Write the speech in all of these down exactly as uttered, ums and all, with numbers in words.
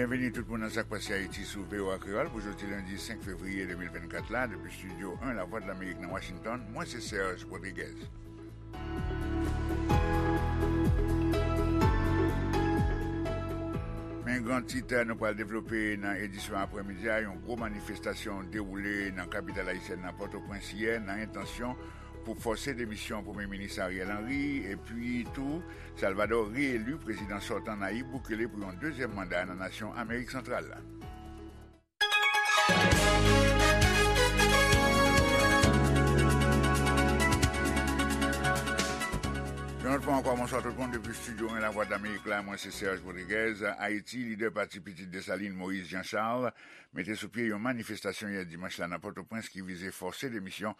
Byenveni tout moun nan Sa k Pase Ayiti sou V O A Kreyòl pou jodi lendi senk fevriye de mil vennkat la, depi Estidyo en Lavwadlamerik nan Washington, mwen se Serge Rodriguez. Men gran tit nou pral devlope nan edisyon aprèmidi a, yon gwo manifestasyon dewoule nan kapital ayisyèn nan Pòtoprens yè nan entansyon pou fòse demisyon Premye Minis Ariel Henry, epi tou Salvador reyeli prezidan sòtan Nayib Bukele pou yon dezyèm manda nan nasyon Amerik Santral la. Yon lòt fwa ankò, bonswa tout moun depi Estidyo en Lavwadlamerik la, mwen se Serge Rodriguez. Ayiti, lidè pati Pitit Desalin, Moïse Jean Charles, mete sou pye yon manifestasyon yè dimanch la nan Pòtoprens ki vize fòse demisyon,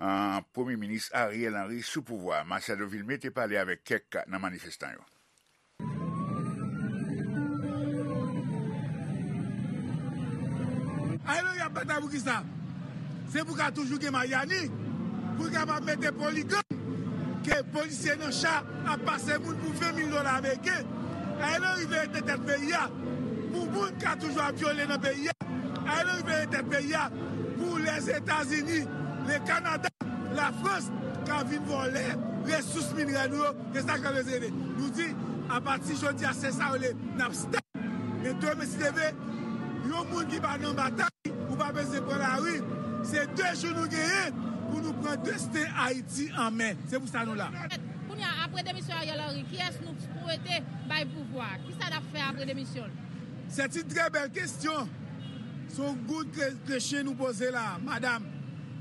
ah, Premye Minis Ariel Henry sou pouvwa. Marcel Devilmé te pale avèk kèk nan manifestan yo. Ariel Henry ap batay pou kisa? Se pou ka toujou gen Maryani, pou l kapab mete poligang, ke polisye nan cha ap pase moun pou ven mil dola ameriken. Ariel Henry veye tèt peyi a pou moun ka toujou ap vyole nan peyi a. Ariel Henry veye tèt peyi a pou Lèzetazini, le Kanada, Lafrans ka vin vòlè resous minerè nou yo. Se sa k ap rete. Nou di, apati jodi a, se sa yo le, n ap stop. Men demen si Dye vle, yon moun ki pa nan batay, ou pa bezwen pran lari. Se de jou nou genyen pou nou pran desten Ayiti an men. Se pou sa nou la. Kounye a, apre demisyon Ariel Henry, kiyès nou swete bay pouvwa? Kisa n ap fè apre demisyon l? C'est une très belle question. Se yon good que-, question nou poze la, madanm.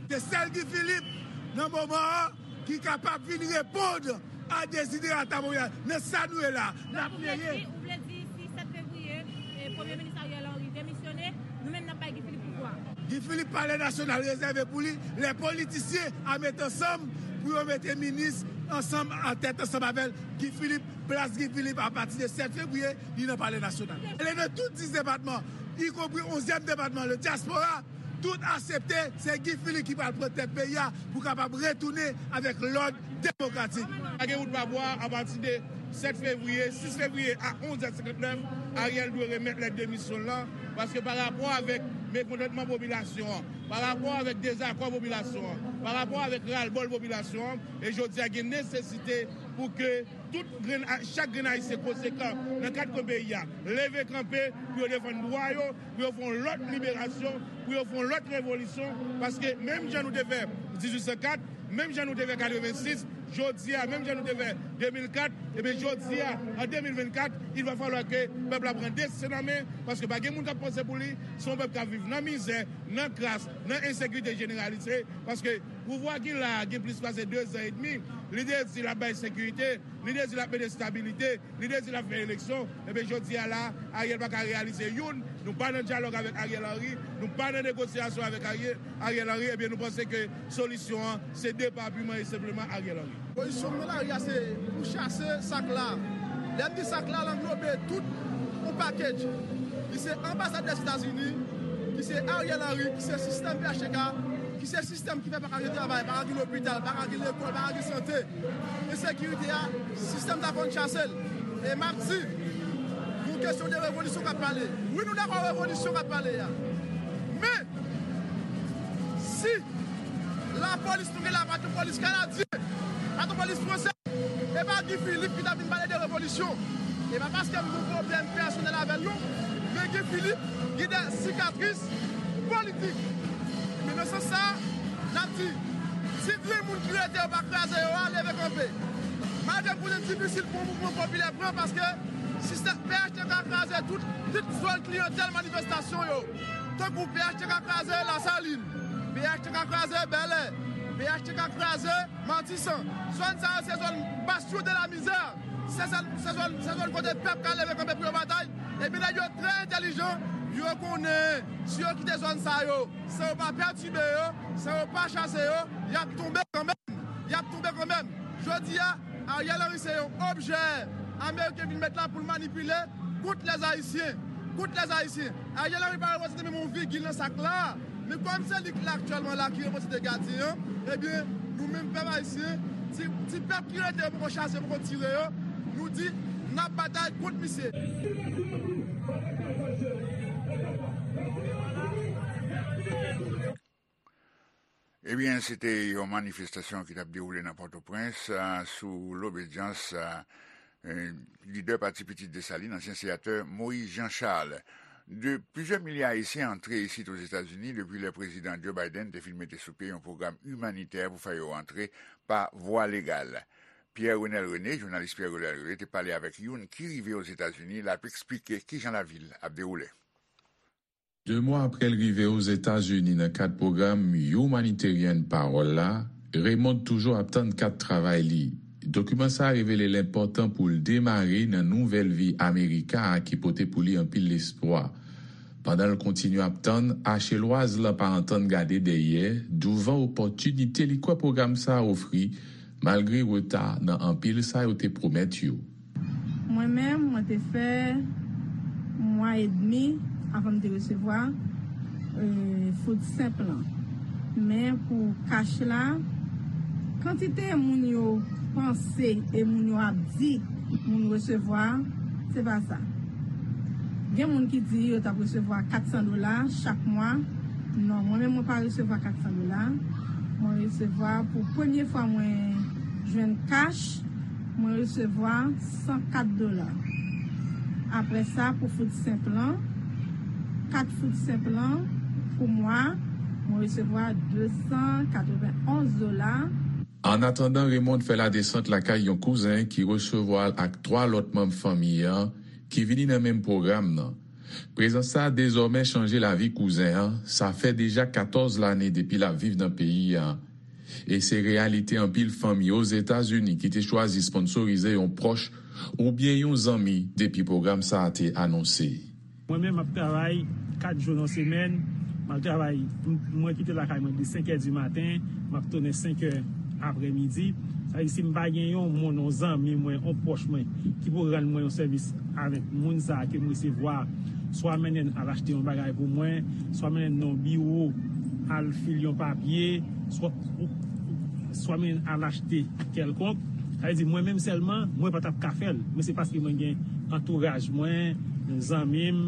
Se sèl Guy Philippe, nan moman an, ki kapab vin reponn a deziderata popilasyon. Nan sa nou ye la, n ap veye. Ou vle di, ou vle di si sèt fevriye, eh, Premye Minis Ariel Henry demisyone, nou menm n ap bay Guy Philippe pouvwa. Guy Philippe, Palè Nasyonal rezève pou li. Lè politisyen a met ansanm pou yo mete minis ansanm, an tèt ansanm avè l. Guy Philippe, plas Guy Philippe, apati de sèt fevriye, li nan Palè Nasyonal. E nan tout dis depatman, ikonpri onzyèm depatman, le diaspora, tout aksepte, se Guy Philippe ki pral pran tèt peyi a pou kapab retounen avèk lòd demokratik. Pa gen wout pa bwa, apati de sèt fevriye, sis fevriye a onz è senkantnèf, Ariel dwe remèt lèt demisyon l lan, paske pa rapò avèk mekontantman popilasyon an, pa rapò avèk dezakò popilasyon an, pa rapò avèk ralbòl popilasyon an, e jodi a gen nesesite pou ke tout grenn, chak grenn Ayisyen konsekan nan kat kwen peyi a leve kanpe pou yo defann dwa yo, pou yo fè yon lòt liberasyon, pou yo fè yon lòt revolisyon, paske menm jan nou te fè dizuit san kat, menm jan nou te fè katrevensis, jodi a, menm jan nou te fè de mil kat, ebyen jodi a, an de mil vennkat, il va falloir ke pèp la pran desten an men, paske pa gen moun k ap panse pou li, se yon pèp k ap viv nan mizè, nan kras, nan ensekirite jeneralize, paske pouvwa ki la a gen plis pase de zan edmi, li te di l ap bay sekirite, li te di l ap mete estabilite, li te di l ap fè eleksyon, ebyen jodi a la, Ariel pa ka reyalize youn, nou pa nan dyalòg avèk Ariel Henry, nou pa nan negosyasyon avèk Ariel, Ariel Henry, ebyen nou panse ke solisyon an se depa piman e senpleman Ariel Henry. Pozisyon m nan lari a se pou chase sak la. Lè m di sak la, l anglobe tout yon package. Li se anbasad Lèzetazini, ki se Ariel Henry, ki se sistèm P H T K, ki se sistèm ki fè pa ka gen travay, pa ka gen lopital, pa ka gen lekòl, pa ka gen sante. Ensekirite a, sistèm sa fò n chase l. E m ap di, pou kesyon de revolisyon k ap pale. Wi, nou dakò revolisyon k ap pale a. Men, si lapolis nou gen la pa t yon polis kanadyen, pa t yon polis fransè, e pa Guy Philippe ki t ap vin pale de revolisyon. E pa paske m gen yon pwoblèm pèsonèl avè l non, men Guy Philippe gen de sikatris politik. Men nan sans sa, n ap di, si grenn moun ki rete yo pa kraze yo a, leve kanpe. Malgre m konnen difisil pou yon mouvman popilè pran, paske sistèm P H T K kraze tout, tout zòn kliyantèl manifestasyon yo. Tankou P H T K kraze Lasalin, P H T K kraze Bèlè, P H T K kraze Matisan. Zòn sa yo se zòn bastion de la misère. Se zòn, se zòn, se zòn kote pèp ka leve kanpe pou yo batay. Epi nèg yo trè entèlijan, yo konnen si yo kite zòn sa yo, san yo pa pètibe yo, san yo pa chase yo, y ap tonbe kanmenm. Y ap tonbe kanmenm. Jodi a, Ariel Henry se yon objè ameriken vin met la pou l manipile kont lèzayisyen. Kont lèzayisyen. Ariel Henry pa reprezante menm yon vigil nan sak la. Men kòm se li k la aktyèlman la ki reprezante gadyen an, ebyen, nou menm pèp ayisyen, ti, ti pèp ki rete yo poko chase, poko tire yo, nou di, N ap batay kont misye. Ebyen, se te yon manifestasyon ki t ap dewoule nan Pòtoprens, a, sou lobedyans, a, e, lidè Pati Pitit Desalin, ansyen senatè Moïse Jean Charles. De plizyè milye Ayisyen antre isit Ozetazini depi lè Prezidan Joe Biden te fin mete sou pye yon pwogram imanitè pou fè yo antre pa vwa legal. Pierre Renel René, jounalis Pierre Renel René, te pale avèk youn ki rive Ozetazini, l ap eksplike kijan lavil ap dewoule. De mwa apre l rive Ozetazini nan kad pwogram Humanitarian Parole la, Raymond toujou ap tann kat travay li. Dokiman sa a revele l enpòtan pou l demare nan nouvèl vi Amerika a ki pote pou li anpil lespwa. Pandan l kontinye ap tann, Achelwaz la pa antann gade dèyè douvan opòtinite li kwè pwogram sa a ofri, malgre reta nan anpil sa yo te pwomèt yo. Mwen menm, mwen te fè mwa edmi avan m te resevwa, e, food stamp lan. Men pou kach la, kantite moun yo panse e moun yo ap di moun resevwa, se pa sa. Gen moun ki di yo t ap resevwa kat san dola chak mwa. Non, mwen menm, mwen pa resevwa kat san dola. Mwen resevwa, pou premye fwa mwen jwenn kach, mwen resevwa san kat dola. Apre sa, pou food stamp lan, kat food stamp lan, pou mwa, mwen resevwa de san katrevenn onz dola. Annatandan, Raymond fè ladesant lakay yon kouzen ki resevwa l ak twa lòt manm fanmi an ki vini nan menm pwogram nan. Prezans sa a dezòmè chanje lavi kouzen an, sa fè deja katòz lane depi l ap viv nan peyi a. E se reyalite anpil fanmi Ozetazini ki te chwazi sponsorize yon pwòch oubyen yon zanmi depi pwogram sa a te anonse. Mwen menm, m ap travay kat jou nan semèn. M al travay, m- mwen kite lakay mwen de senk è di maten, m ap tounen senk è aprèmidi. Sa vle di, si m pa gen yon moun, yon zanmi mwen, yon pwòch mwen, ki pou rann mwen yon sèvis avèk moun sa a ke m resevwa, swa mennen l al achte yon bagay pou mwen, swa mennen l nan yon biwo, al fil yon papye, swa, swa mennen l al achte kèlkonk. Sa vle di, mwen menm sèlman, mwen pa t ap ka fè l. Men se paske mwen gen antouraj mwen, zanmi m,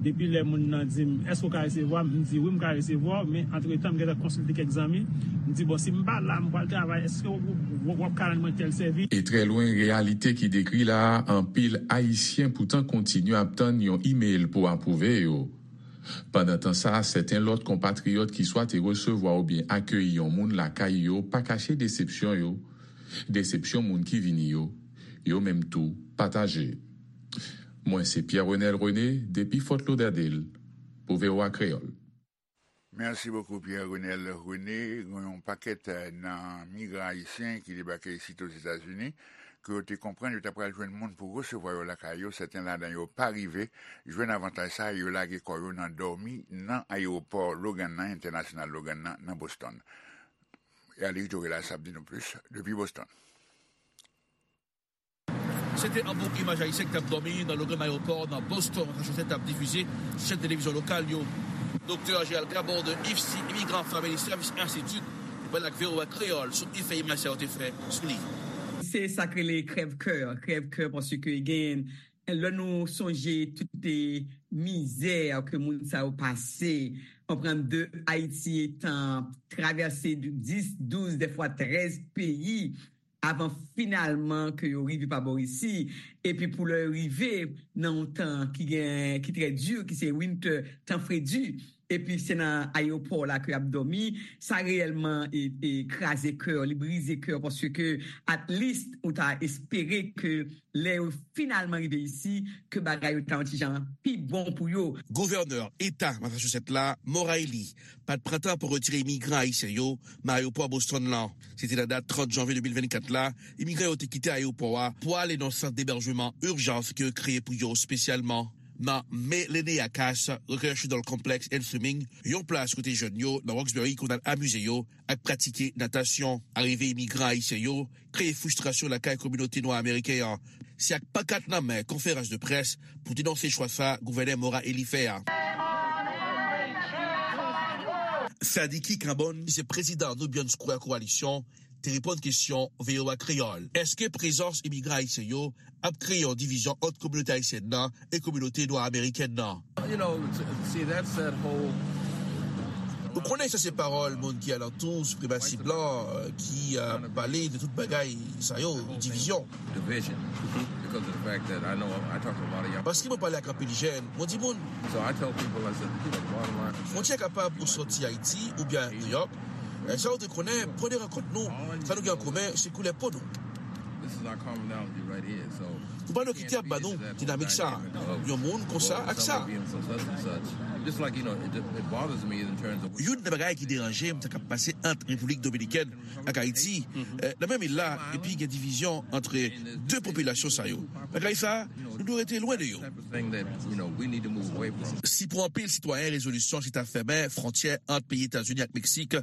depi lè moun nan di m, "Èske w ka resevwa m?" M di, "Wi, m ka resevwa w," men antretan, m gentan konsilte kèk zanmi. M di, "Bon, si m pa la, m pral travay, èske w, w, w, w ap ka rann mwen tèl sèvis?" E trè lwen reyalite ki dekri la a, anpil Ayisyen poutan kontinye ap tann yon imèl pou apwouve yo. Pandan tan sa a, sèten lòt konpatriyòt ki swa te resevwa oubyen akeyi yon moun lakay yo pa kache desepsyon yo. Desepsyon moun ki vini yo, yo menm tou pataje. Mwen se Pierre Renel René depi Fort Lauderdale pou V O A Kreyòl. Merci beaucoup, Pierre Renel René. Gen yon pakèt, eh, nan migran ayisyen ki debake isit Ozetazini, ke yo te konprann yo ta pral jwenn moun pou resevwa yo lakay yo. Sèten ladan yo pa rive jwenn avantaj sa, yo lage kò yo nan dòmi nan ayewopò Logan nan, entènasyonal Logan nan, nan Boston. E Alex Dorela sa ap di nou plis depi Boston. Se te yon bon imaj ayisyen ki t ap dòmi nan Logan Aéroport nan Boston, Massachusetts, t ap difize sou chèn televizyon lokal yo. Doktè Gérald Gabor de IFSI, Immigrant Family Service Institute, te pale ak V O A Kreyòl sou efè imaj sa yo te fè sou li. Se sa k rele krèv kè, krèv kè paske gen lè nou sonje tout mizè ke moun sa yo pase, konprann de Ayiti etan travèse dis, douz, dèfwa trèz peyi avan finalman ke yo rive pa bò isi, epi pou lè yo rive nan yon tan ki gen ki trè di, ki se winter, tan fredi, epi se nan ayewopò la ke y ap dòmi, sa reyèlman e, e kraze kè, li brize kè paske at least ou ta espere ke lè yo finalman rive isi, ke bagay yo ta yon ti jan pi bon pou yo. Gouvènè Eta Massachusetts la, Maura Healey, pa t pran tan pou retire imigran ayisyen yo nan ayewopò Boston lan. Se te nan dat trant janvye de mil vennkat la, imigran yo te kite ayewopò a pou ale nan sant debèjman ijans ke yo kreye pou yo espesyalman. Nan Me Lene Akas, rekreational complex and swimming, yon plas kote jèn yo nan Roxbury konn al amize yo ak pratike natasyon. Arive imigran ayisyen yo kreye fristrasyon lakay kominote nwa ameriken an. Se ak pankat nan men konferans de près pou denonse chwa sa gouvènè Maura Healey fè a. Sadiki Carbone, ki se prezidan Nubian Square Coalition, te reponn kesyon V O A Kreyòl. Èske prezans imigran ayisyen yo ap kreye yon divizyon ant kominote ayisyèn nan e kominote nwa amerikèn nan? You know, see, that's that whole Ou konnen sa se pawòl moun ki alantou sipremasi blan, euh, ki, euh, pale de tout bagay sa yo, divizyon. Division. Because of the fact that I know I talk to a lot of young Paske mwen pale ak anpil jèn, mwen di moun, So I tell people, I said, you know, bottom line, fwontyè kapab ou soti Ayiti oubyen New York. Sa ou te konnen, premye rankont nou, sa nou gen an komen, se koulè po nou. This is our commonality right here. So Nou pa dwe kite ap ba nou dinamik sa, yon moun konsa ak sa. Youn nan bagay ki deranje m, sa k ap pase ant Repiblik Dominikèn ak Ayiti, eh, nan menm il la, epi gen divizyon ant de popilasyon sa yo. Bagay sa, nou dwe rete lwen de yo. Si pou anpil sitwayen rezolisyon se ta fèmen fwontyè ant peyi Etazini ak Meksik,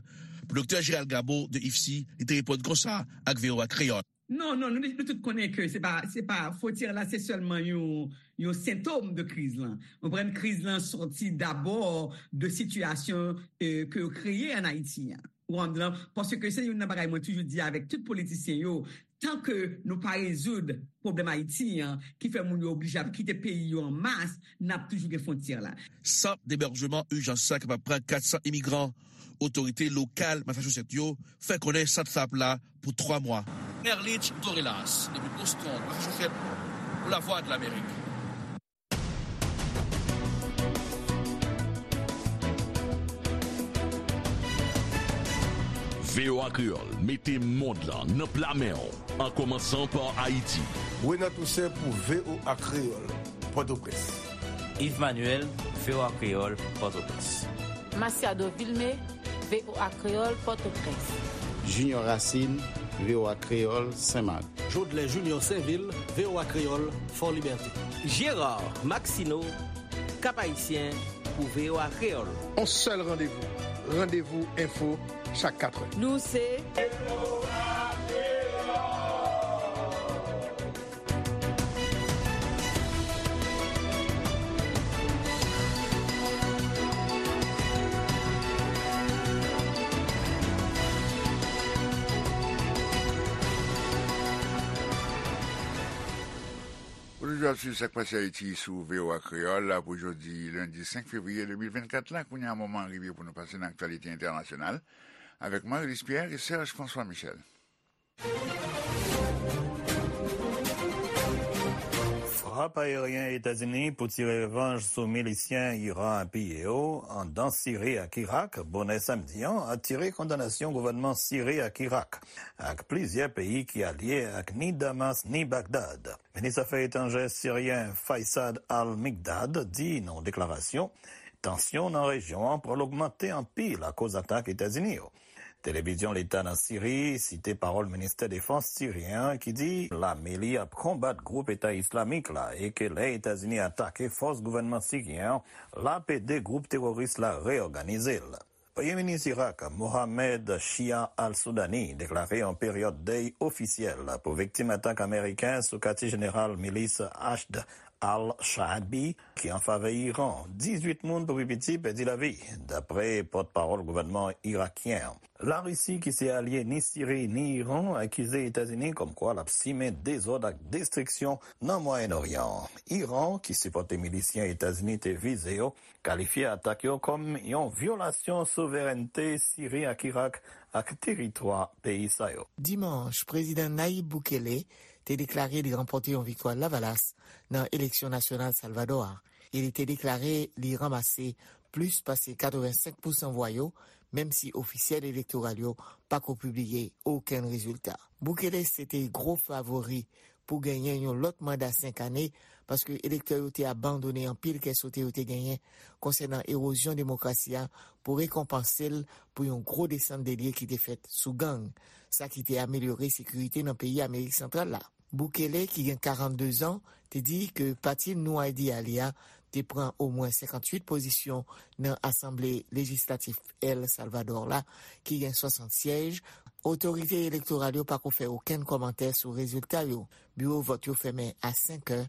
pou Doktè Gérald Gabo de IFSI, li te reponn konsa ak V O A Kreyòl. Non, non, nou, nou tout konnen ke se pa, se pa, fwontyè la, se sèlman yon, yon sentòm de kriz lan. Ou konprann, kriz lan sòti dabò de sitiyasyon, eh, ke yo kreye ann Ayiti an. Ou konprann, paske se youn nan bagay mwen toujou di avèk tout politisyen yo, tan ke nou pa rezoud pwoblèm Ayiti an, ki fè moun yo oblije ap kite peyi yo an mas, n ap toujou gen fwontyè la. Sant debèjman ijans sa kapab pran kat san imigran. Otorite lokal Massachusetts yo fè konnen sant sa ap la pou twa mwa. Erlich Dorelas, depi Boston, Massachusetts, pou Lavwadlamerik. V O A Kreyòl mete mond lan nan pla men w, an kòmansan pa Ayiti. Renan Toussaint pou V O A Kreyòl, Pòtoprens. Yves Manuel, V O A Kreyòl, Pòtoprens. Masiado Vilmé, V O A Kreyòl, Pòtoprens. Junior Racine, V O A Kreyòl, Senmak. Jodlè Junior Sainvil, V O A Kreyòl, Fòlibète. Gérard Maxineau, Cap-Haïtien, pou V O A Kreyòl. On sèl randevou, Randevou Enfo, chak katrè. Nou se Ou toujou ap swiv Sa k Pase Ayiti sou V O A Kreyòl la pou jodi lendi senk fevriye de mil vennkat la. Kounye a, moman an rive pou nou pase nan aktyalite entènasyonal avèk Marie-Luce Pierre e Serge François Michel. Frap ayeryen Etazini pou tire revanj sou milisyen Iran apiye yo anndan Siri ak Irak, bonè samdi an, atire kondanasyon gouvènman Siri ak Irak, ak plizyè peyi ki alye ak ni Damas ni Bagdad. Minis afè etranjè siryen Faisad al-Mikdad di nan yon deklarasyon, tansyon nan rejyon an pral ogmante anpil akoz atak Etazini yo. Televizyon leta nan Siri site pawòl ministè defans siryen an ki di lame li ap konbat gwoup Eta Islamik la e ke lè Etazini atake fòs gouvènman siryen an, l ap ede gwoup teworis la reyòganize l. Premye minis Irak, Mohamed Shia al-Sudani, deklare yon peryòd dèy ofisyèl pou viktim atak ameriken sou katye jeneral milis Hashd al-Shaabi, ki an favè Iran. Dizuit moun pou pi piti pèdi lavi, dapre pòtpawòl gouvènman irakyen an. Larisi, ki se alye ni Siri ni Iran, akize Etazini kòmkwa l ap simen dezòd ak destriksyon nan Mwayen Oryan an. Iran, ki sipòte milisyen Etazini te vize yo, kalifye atak yo kòm yon vyolasyon souverènte Siri ak Irak ak teritwa peyi sa yo. Dimanch, Prezidan Nayib Bukele te deklare li ranpòte yon viktwa lavalas nan eleksyon nasyonal Salvadò a, e li te deklare li ranmase plis pase katrevensenk pousan vwa yo, menm si ofisyèl elektoral yo pako pibliye okenn rezilta. Bukele se te gwo favori pou genyen yon lòt manda senk ane, paske elektè yo te abandone anpil kè sote yo te genyen konsènan ewozyon demokrasi a pou rekonpanse l pou yon gwo desann de lye ki te fèt sou gang, sa ki te amelyore sekirite nan peyi Amerik Santral la. Bukele, ki gen karannde zan, te di ke pati Nou Idea li a te pran omwen senkantuit pozisyon nan Asanble Lejislatif El Salvador la, ki gen swasant syèj. Otorite elektoral yo pako fè okenn kòmantè sou rezilta yo. Biwo vòt yo fèmen a senk è,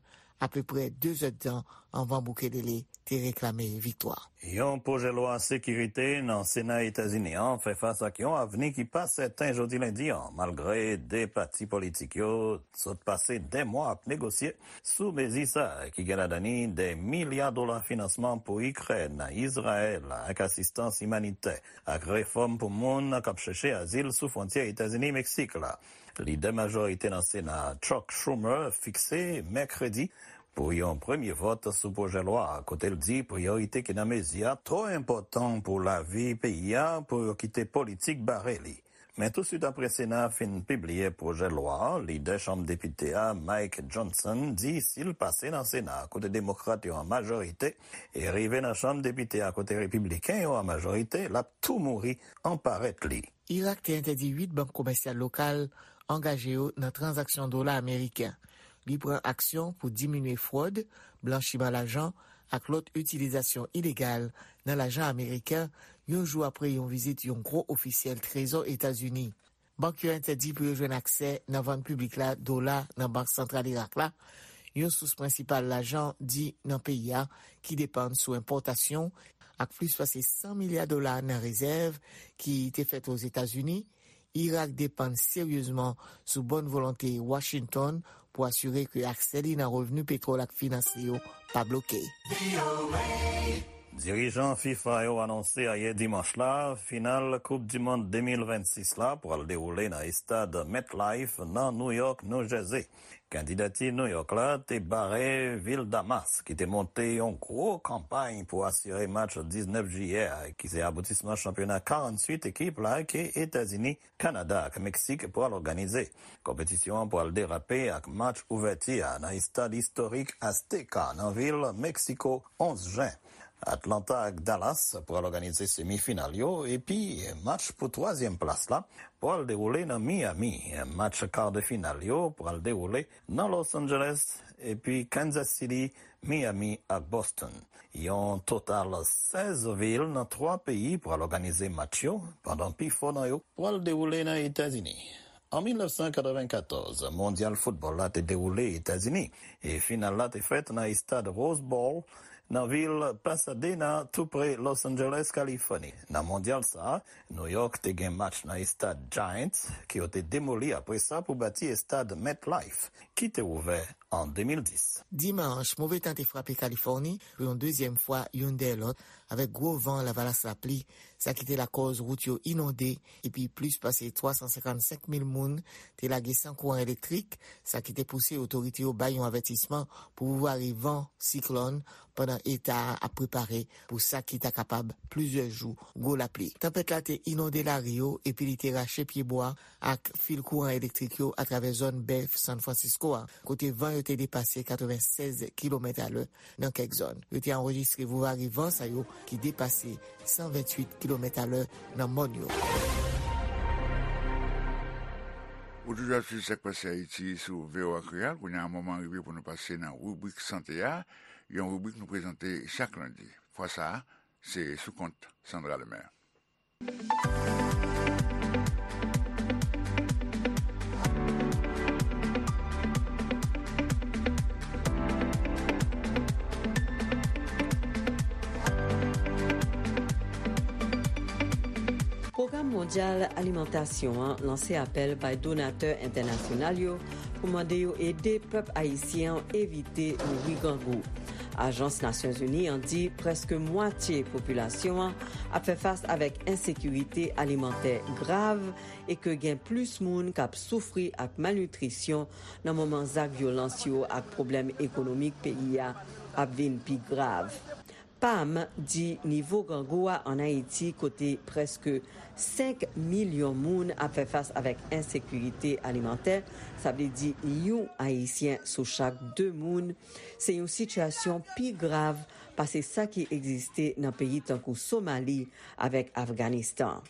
apeprè de zèdtan anvan Bukele te te reklame viktwa. Yon pwojè lwa sekirite nan Sena Etazini an fè fas ak yon avni ki pa sèten jodi lendi an, malgre de pati politik yo sot pase de mwa ap negosye sou mezi sa a, ki gen ladan li de milya dola finansman pou Ikrèn, Izrayèl, ak asistans imanitè, ak refòm pou moun k ap chèche azil sou fwontyè Etazini-Meksik la. Lidè majorite nan Sena a, Chuck Schumer, fikse mèkredi pou yon premye vòt sou pwojè lwa a, kote l di priyorite ki nan mezi a twò enpòtan pou lavi peyi a pou yo kite politik bare li. Men tousuit apre Sena a fin pibliye pwojè lwa a, lidè Chanm Depite a, Mike Johnson, di si l pase nan Sena a, kote Demokrat yo an majorite, e rive nan Chanm Depite a, kote Repibliken yo an majorite, l ap tou mouri an parèt li. Irak te entèdi uit bank komèsyal lokal angaje yo nan tranzaksyon dola ameriken. Li pran aksyon pou diminye fwòd, blanchiman lajan ak lòt itilizasyon ilegal nan lajan ameriken, yon jou apre yon vizit yon gwo ofisyèl Trezò Etazini. Bank yo entèdi pou yo jwenn aksè nan vann piblik la dola nan Bank Santral Irak la, yon sous prensipal lajan di nan peyi a ki depann sou enpòtasyon, ak plis pase san milya dola nan rezèv ki te fèt Ozetazini, Irak depann seryezman sou bòn volonte Washington pou asire ke aksè li nan revni petwòl ak finans li yo pa bloke. Dirijan fifa yo anonse ayè dimanch la, final Koup di Mond de mil vennsis la pral dewoule nan estad MetLife nan New York, New Jersey. Kandidati New York la te bare vil Damas, ki te monte yon gwo kanpay pou asire match diznèf jiyè a, ki se aboutisman chanpyona karanntuit ekip la ke Etazini, Kanada ak Meksik pral òganize. Konpetisyon an pral derape ak match ouvèti a nan estad istorik Azteca nan vil Meksiko, onz jen. Atlanta ak Dallas pral òganize semifinal yo, epi match pou twazyèm plas la pral dewoule nan Miami. Match kar de final yo pral dewoule nan Los Angeles, epi Kansas City, Miami ak Boston. Yon total sèz vil nan twa peyi pral òganize match yo, pandan pifò nan yo pral dewoule nan Etazini. An mil nèf san katrevennkatòz, Mondyal Foutbòl la te dewoule Etazini, e final la te fèt nan estad Rose Bowl, nan vil Pasadena, tou pre Los Angeles, Kalifòni. Nan Mondyal sa a, New York te gen match nan estad Giants, ke yo te demoli apre sa pou bati estad MetLife, ki te ouvè an de mil dis. Dimanch, move tan te frape Kalifòni pou yon dezyèm fwa, youn dèyè lòt, avèk gwo van, lavalas, lapli, sa ki te lakòz wout yo inonde, epi plis pase twa san senkannsenk mil moun te lage san kouran elektrik, sa ki te pouse otorite yo bay yon avètisman pou vouvare van siklòn pandan eta a ap prepare pou sa ki ta kapab plizyè jou gwo lapli. Tanpèt la te inonde lari yo epi li te rache pyebwa ak fil kouran elektrik yo atravè zòn bèf San Francisco a, kote van yo te depase katrevennsèz kilomèt alè nan kèk zòn. Yo te anrejistre vouvare van sa yo ki depase san ventuit kilomèt alè nan mòn yo. Ou toujou ap swiv Sa k Pase Ayiti sou V O A Kreyòl. Kounye a, moman rive pou nou pase nan ribrik sante a, yon ribrik nou prezante chak lendi. Fwa sa a, se sou kont Sandra Lemaire. Pwogram Mondyal Alimantasyon an lanse apèl bay donatè entènasyonal yo pou mande yo ede pèp ayisyen an evite mouri grangou. Ajans Nasyonzini an di prèske mwatye popilasyon an ap fè fas avèk ensekirite alimantè grav e ke gen plis moun k ap soufri ak malnitrisyon nan moman zak vyolans yo ak pwoblèm ekonomik peyi a ap vin pi grav. Pam di nivo grangou a ann Ayiti, kote prèske senk milyon moun ap fè fas avèk ensekirite alimantè, sa vle di yon Ayisyen sou chak de moun, se yon sitiyasyon pi grav pase sa ki egziste nan peyi tankou Somali avèk Afganistan.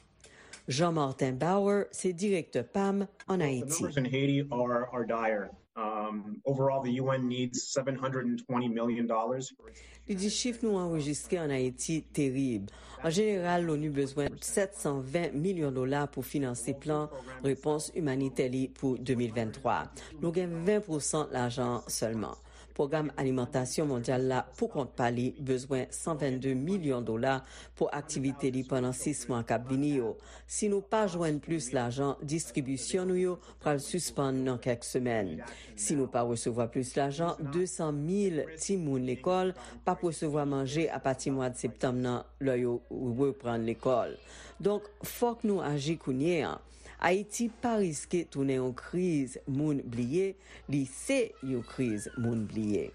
Jean Martin Bauer se direktè pam ann Ayiti. The numbers in Haiti are, are dire. Um, overall, the U N needs seven hundred and twenty million dollars for its Li di chif nou anrejistre ann Ayiti terib. An jeneral, Loni bezwen sèt san ven milyon dola pou finanse plan repons imanitè li pou de mil venntwa. Nou gen ven pousan lajan an sèlman. Pwogram Alimantasyon Mondyal la, pou kont pa li, bezwen san vennde milyon dola pou aktivite li pandan sis mwa k ap vini yo. Si nou pa jwenn plis lajan, distribisyon nou yo pral sispann nan kèk semèn. Si nou pa resevwa plis lajan, de san mil timoun lekòl p ap resevwa manje apati mwa septanm nan, lè yo reprann lekòl. Donk, fòk nou aji kounye a. Ayiti pa riske tounen yon kriz moun bliye, li se yon kriz moun bliye.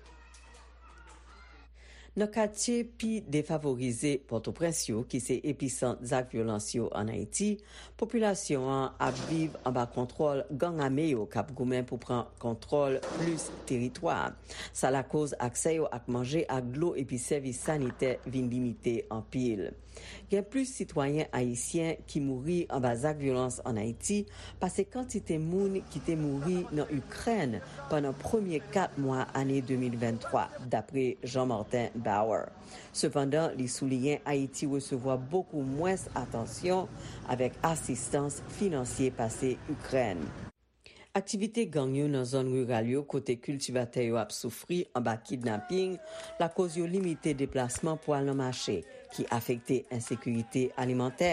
Nan katye pi defavorize Pòtoprens yo, ki se episant zak vyolans yo ann Ayiti, popilasyon an ap viv anba kontwòl gang ame yo k ap goumen pou pran kontwòl plis teritwa. Sa lakoz aksè yo ak manje, ak dlo epi sèvis sanitè vin limite anpil. Gen plis sitwayen ayisyen ki mouri anba zak vyolans ann Ayiti pase kantite moun ki te mouri nan Ikrèn pandan premye kat mwa ane de mil venntwa, dapre Jean Martin Bauer. Sepandan, li souliyen Ayiti resevwa bokou mwens atansyon avèk asistans finansye pase Ikrèn. Aktivite gang yo nan zòn riral yo, kote kiltivatè yo ap soufri anba kidnaping, lakoz yo limite deplasman pou al nan mache, ki afekte ensekirite alimantè.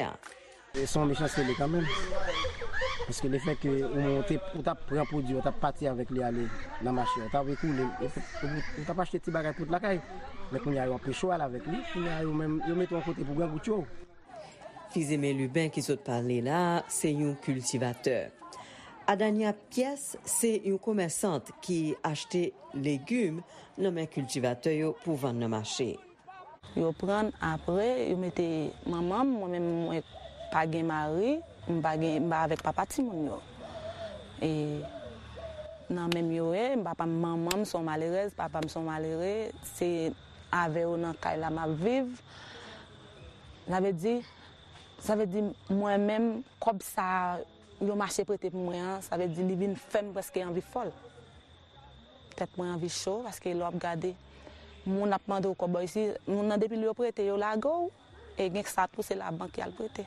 Se yon mechanste li kanmenm. Paske lefètke ou monte, ou t ap pran pwodui, ou t ap pati avèk li ale nan mache, ou t ap ekoule, ou, ou, ou t ap achte ti bagay pou lakay. Men kounye a yo anpeche w al avèk li, kounye a yo menm, yo mete w yon kote pou grangout yo. Fizeme Lubin ki sot pale la a, se yon kiltivatè. Adania Pyès se yon komèsant ki achte legim nan men kiltivatè yo pou vann nan mache. Yo pran, apre, yo mete manman m, mwen menm, mwen pa gen mari, m pa gen, m pa avèk papa timoun yo. E nan men m yo ye, m papa m, manman m se yon malerèz, papa m se yon malere, se avè yo nan kay la m ap viv. Sa vle di, sa vle di mwen menm, kòb sa yo mache prete pou mwen an, sa vle di li vin fè m prèske anvi fòl. Tèt mwen anvi cho, paske lè w ap gade, moun ap mande w kòb bò isi, moun nan depi lè yo prete, yo lage w, e gen sa tou, se labank y al prete.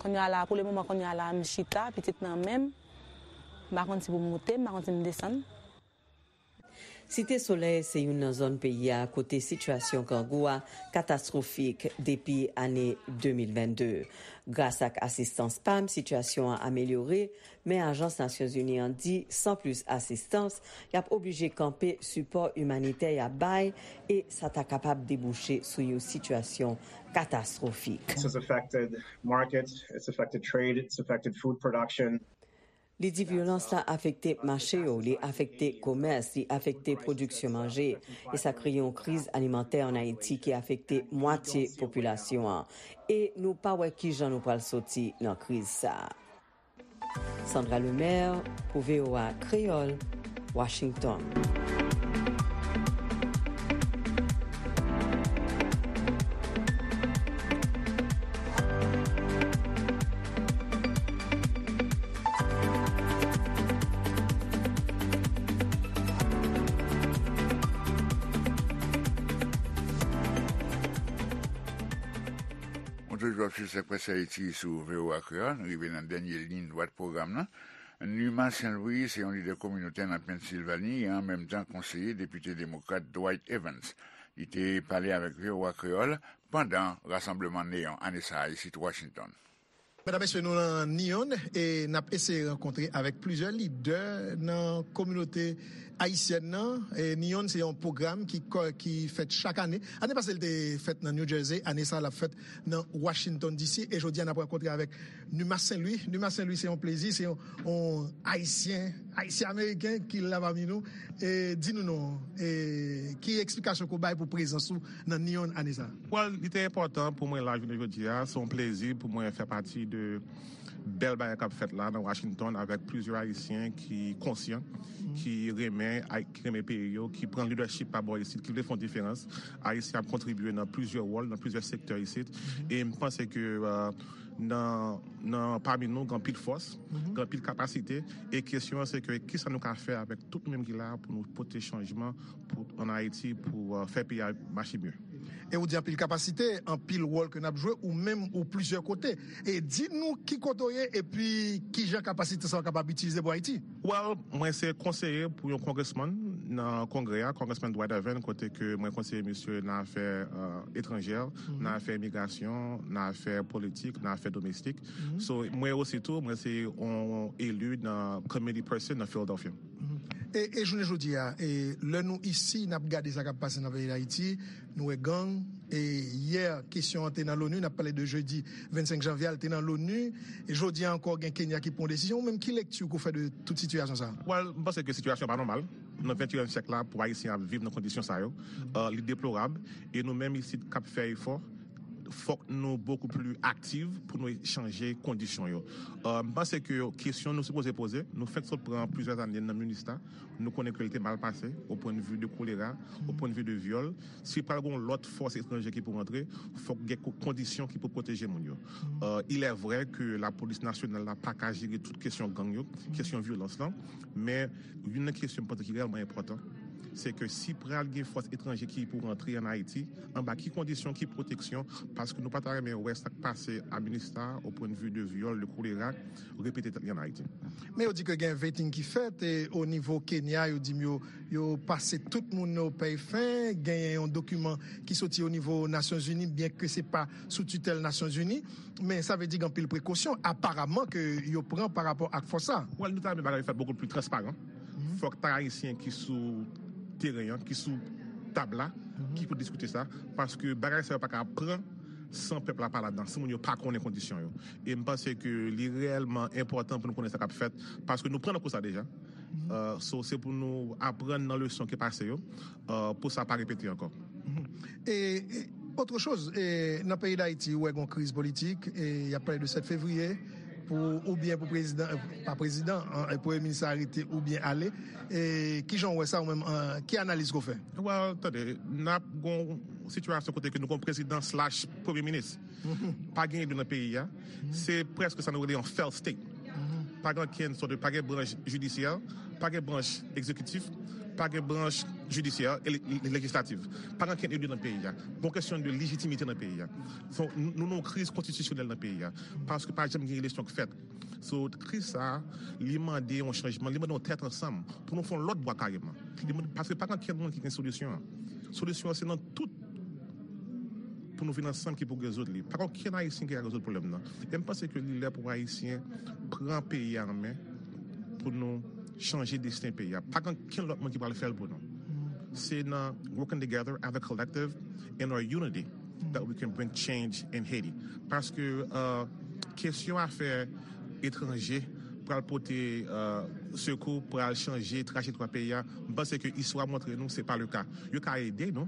Kounye a la, pou le moman, kounye a la, m chita, pitit nan men m, m pa konn si pou m moute, m pa konn si m desann. Site Solèy se youn nan zòn peyi a kote sitiyasyon grangou a katastwofik depi ane de mil vennde. Gras ak asistans pam, sitiyasyon an amelyore, men ajans Nasyonzini an di, san plis asistans, y ap oblije kanpe sipò imanitè y ap bay, e sa ta kapab debouche sou yon sitiyasyon katastwofik. This has affected markets, it's affected trade, it's affected food production. Li di vyolans la afekte mache yo, li afekte komès, li afekte pwodiksyon manje, e sa kreye yon kriz alimantè ann Ayiti ki afekte mwatye popilasyon an. E nou pa wè kijan nou pral soti nan kriz sa a. Sandra Lemaire pou V O A Kreyòl, Washington. Ou toujou ap swiv Sèk Près Ayiti sou V O A Kreyòl. Nou rive nan dènye liy dwat pwogram nan. Numa Saint Louis se yon lidè kominotè nan Pennsilvani e an menm tan konseye depite demokrat Dwight Evans. Li te pale avèk V O A Kreyòl pandan rasanbleman Neon ane sa a isit Washington. Medam, mesye, nou nan Nyon e n ap eseye rankontre avèk plizyè lidè nan kominote ayisyèn nan. E Nyon se yon pwogram ki, ki fèt chak ane. Ane pase, l te fèt nan New Jersey. Ane sa a, l ap fèt nan Washington D C. E jodi a, n ap rankontre avèk Numa Saint Louis. Numa Saint Louis, se yon plezi, se yon, yon Ayisyen, Ayisyen Ameriken ki la pami nou. E di nou non, e ki eksplikasyon ke w bay pou prezans ou nan Nyon ane sa a? Well, li te enpòtan pou mwen la jounen jodi a. Se yon plezi pou mwen fè pati de bèl bagay k ap fèt la nan Washington avèk plizyè Ayisyen ki konsyan, ki renmen, ki renmen peyi yo, ki pran leadership pa bò isit, ki vle fè yon diferans. Ayisyen ap kontribye nan plizyè wòl, nan plizyè sektè isit. E m panse ke, euh, nan, nan, pami nou, gen anpil fòs, gen anpil kapasite. E kesyon an se ke kisa nou ka fè avèk tout nou menm ki la pou nou pote chanjman pou, ann Ayiti, pou, euh, fè peyi a mache mye. E ou di anpil kapasite, anpil wòl ke n ap jwe, ou menm ou plizyè kote. E di nou ki kote w ye, epi kijan kapasite sa w kapab itilize pou Ayiti. Well, mwen se konseye pou yon congressman nan Kongrè a, Congressman Dwight Irvin, kote ke mwen konseye misye nan afè, euh, etranjè, nan afè imigrasyon, nan afè politik, nan afè domestik. So, mwen osi tou, mwen se yon eli nan committee person nan Philadelphia. E, e jounen jodi a, e, lè nou isi, n ap gade sa k ap pase nan peyi Dayiti, nou wè gang, e yè, kesyon an te nan l'ONU, n ap pale de jedi vennsenk janvye a, l te nan l'ONU, e jodi a ankò gen Kenya ki pran yon desizyon, ou menm ki lekti ou fè de tout sitiyasyon sa a? Well, m panse ke sitiyasyon pa nòmal. Nan venteyen syèk la, pou Ayisyen ap viv nan kondisyon sa yo, euh, li deplorab, e nou menm isit k ap fè efò, fòk nou bokou pli aktif pou nou chanje kondisyon yo. Euh, m panse ke kesyon nou sipoze poze, nou fèk sot pran plizyè ane nan MINUSTAH, nou konnen ke l te mal pase, au point de vue de kolera, au point de vue de vyòl. Si pral gen yon lòt fòs etranje ki pou rantre, fòk gen ko-, kondisyon ki pou pwoteje moun yo. Euh, il est vrai que lapolis nasyonal la pa ka jere tout kesyon gang yo, kesyon vyolans lan, men youn nan kesyon m panse ki reyèlman enpòtan, se ke si pral gen fòs etranje ki pou rantre an Ayiti, anba ki kondisyon, ki pwoteksyon, paske nou pa ta renmen wè sa k pase a MINUSTAH au point de vue de vyòl, de kolera, repete tèt li an Ayiti. Men yo di ke gen vetting ki fèt, e o nivo Kenya, yo di m yo, yo pase tout moun o pèy fen, genyen yon dokiman ki soti o nivo Nasyonzini, byen ke se pa sou titèl Nasyonzini, men sa vle di gen anpil prekosyon, aparaman, ke yo pran pa rapò ak fòs sa. Well, nou ta renmen bagay yo fèt bokou pli transparan. Fòk ta Ayisyen ki sou teren an, ki sou tab la, ki pou diskite sa, paske bagay sa yo pa ka pran san pèp la pa ladan, si moun yo pa konnen kondisyon yo. E m panse ke li reyèlman enpòtan pou nou konnen sa k ap fèt, paske nou pran nan kou sa deja. Euh, so, se pou nou aprann nan leson ki pase yo, euh, pou sa pa repete ankò. E, e, autre chose, e, nan peyi Dayiti, ou wè gon kriz politik, e y ap pale de sèt fevriye, pou, oubyen pou prezidan, e, pa prezidan, an, e, premye minis arete oubyen ale. E, kijan w wè sa ou menm, an, ki analiz ke w fè? Well, tande, n ap gon sitiyasyon kote ke nou gon prezidan slash premye minis. Pa gen eli nan peyi a. Se prèske sa nou rele yon failed state. Pa gen okenn sòt de, pa gen branch jidisyè, pa gen branch egzekitif, pa gen branch jidisyè e le-, le-, lejislatif. Pa gen okenn eli nan peyi a. Gon kesyon de lejitimite nan peyi a. So, nou, nou nan yon kriz konstitisyonèl nan peyi a. Paske pa janm gen eleksyon k fèt. So, kriz sa a, li mande yon chanjman, li mande yon tèt ansanm pou nou fè yon lòt bwa kareman. Li mande, paske pa gen okenn moun ki gen solisyon an. Solisyon an se nan tout pou nou vin ansanm ki pou rezoud li. Pa gen okenn Ayisyen ki ka rezoud pwoblèm nan. E m panse ke li lè pou Ayisyen pran peyi a an men pou nou chanje desten peyi a. Pa gen okenn lòt moun ki pral fè l pou nou. Se nan working together as a collective in our unity that we can bring change in Haiti. Paske, euh, kesyon afè etranje pral pote, euh, sekou, pral chanje trajektwa peyi a. M panse ke istwa montre nou se pa le ka. Yo ka ede nou,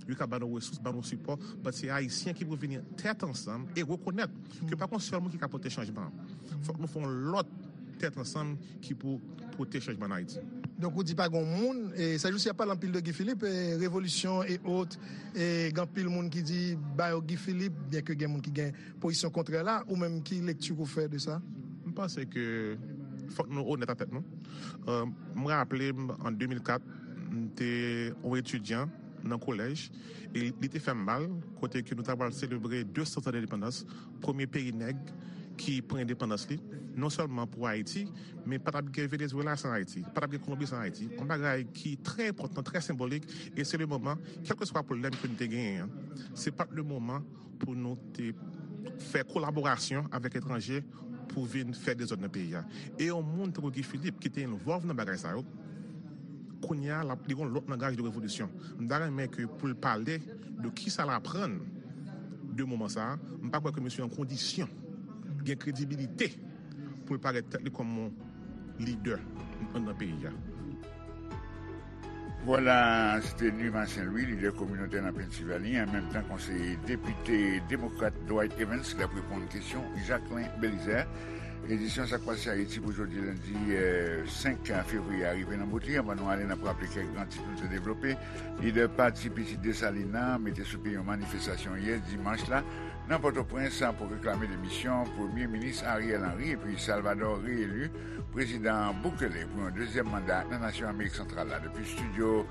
yo ka ba nou resous, ba nou sipò, but se Ayisyen ki pou vini tèt ansanm e rekonèt ke pa gon sèl moun ki ka pote chanjman an. Fòk nou fè yon lòt tèt ansanm ki pou pote chanjman an Ayiti. Donk, ou di pa gon moun, e, sèjousi ap pale anpil de Guy Philippe, e, revolisyon e ot, e, gen anpil moun ki di ba yo Guy Philippe, byen ke gen moun ki gen pozisyon kontrè la, ou menm ki lekti ou fè de sa? M panse ke fòk nou onèt ak tèt nou. Euh, m raple m, an de mil kat, m te yon etidyan nan kolèj, e li te fè m mal, kote ke nou ta pral selebre de san zan endepandans, premye peyi nèg ki pran endepandans li, non sèlman pou Ayiti, men pa t ap gen Venezuela san Ayiti, pa t ap gen Kolonbi san Ayiti. Yon bagay ki trè enpòtan, trè senbolik, e se le moman, kèlkeswa pwoblèm ke nou te genyen an, se pa t le moman pou nou te fè kolaborasyon avèk etranje pou vin fè dezòd nan peyi a. E yon moun tankou Guy Philippe ki te envolve nan bagay sa yo, kounye a, l ap, li gon lòt langaj de revolisyon. M ta renmen ke pou l pale de kisa l aprann de moman sa a, m pa kwè ke misye an kondisyon gen kredibilite pou l parèt tèt li kòm yon lidè nan, nan peyi a. Vwala, se te Numa Saint Louis, lidè kominotè nan Pennsylvanie, an menm tan konseye depite demokrat Dwight Evans, k ap reponn kesyon Jacquelin Belizaire. Edisyon Sa k Pase Ayiti pou jodi lendi, eh, senk fevriye a rive nan bout li. Anvan nou ale, n ap raple kèk gran tit nou te devlope. Lidè pati Pitit Desalin nan mete sou pye yon manifestasyon yè dimanch la nan Pòtoprens pou reklame demisyon Premye Minis Ariel Henry epi Salvador reyeli Prezidan Bukele pou yon dezyèm manda nan nasyon Amerik Santral la. Depi estidyo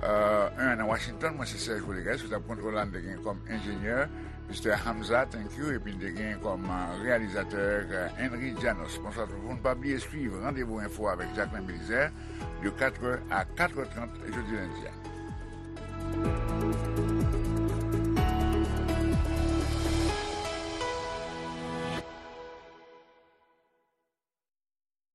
euh, un nan Washington. Mwen se Serge Rodriguez, sou tab kontwòl la, n te gen kòm enjenyè Mister Hamza, thank you, epi n te gen kòm, euh, reyalizatè, euh, Henry Janos. Bonswa tout moun, pa bliye swiv Randevou Enfo avèk Jacqueline Belizaire de quatre heures à quatre heures trente jodi lendi a.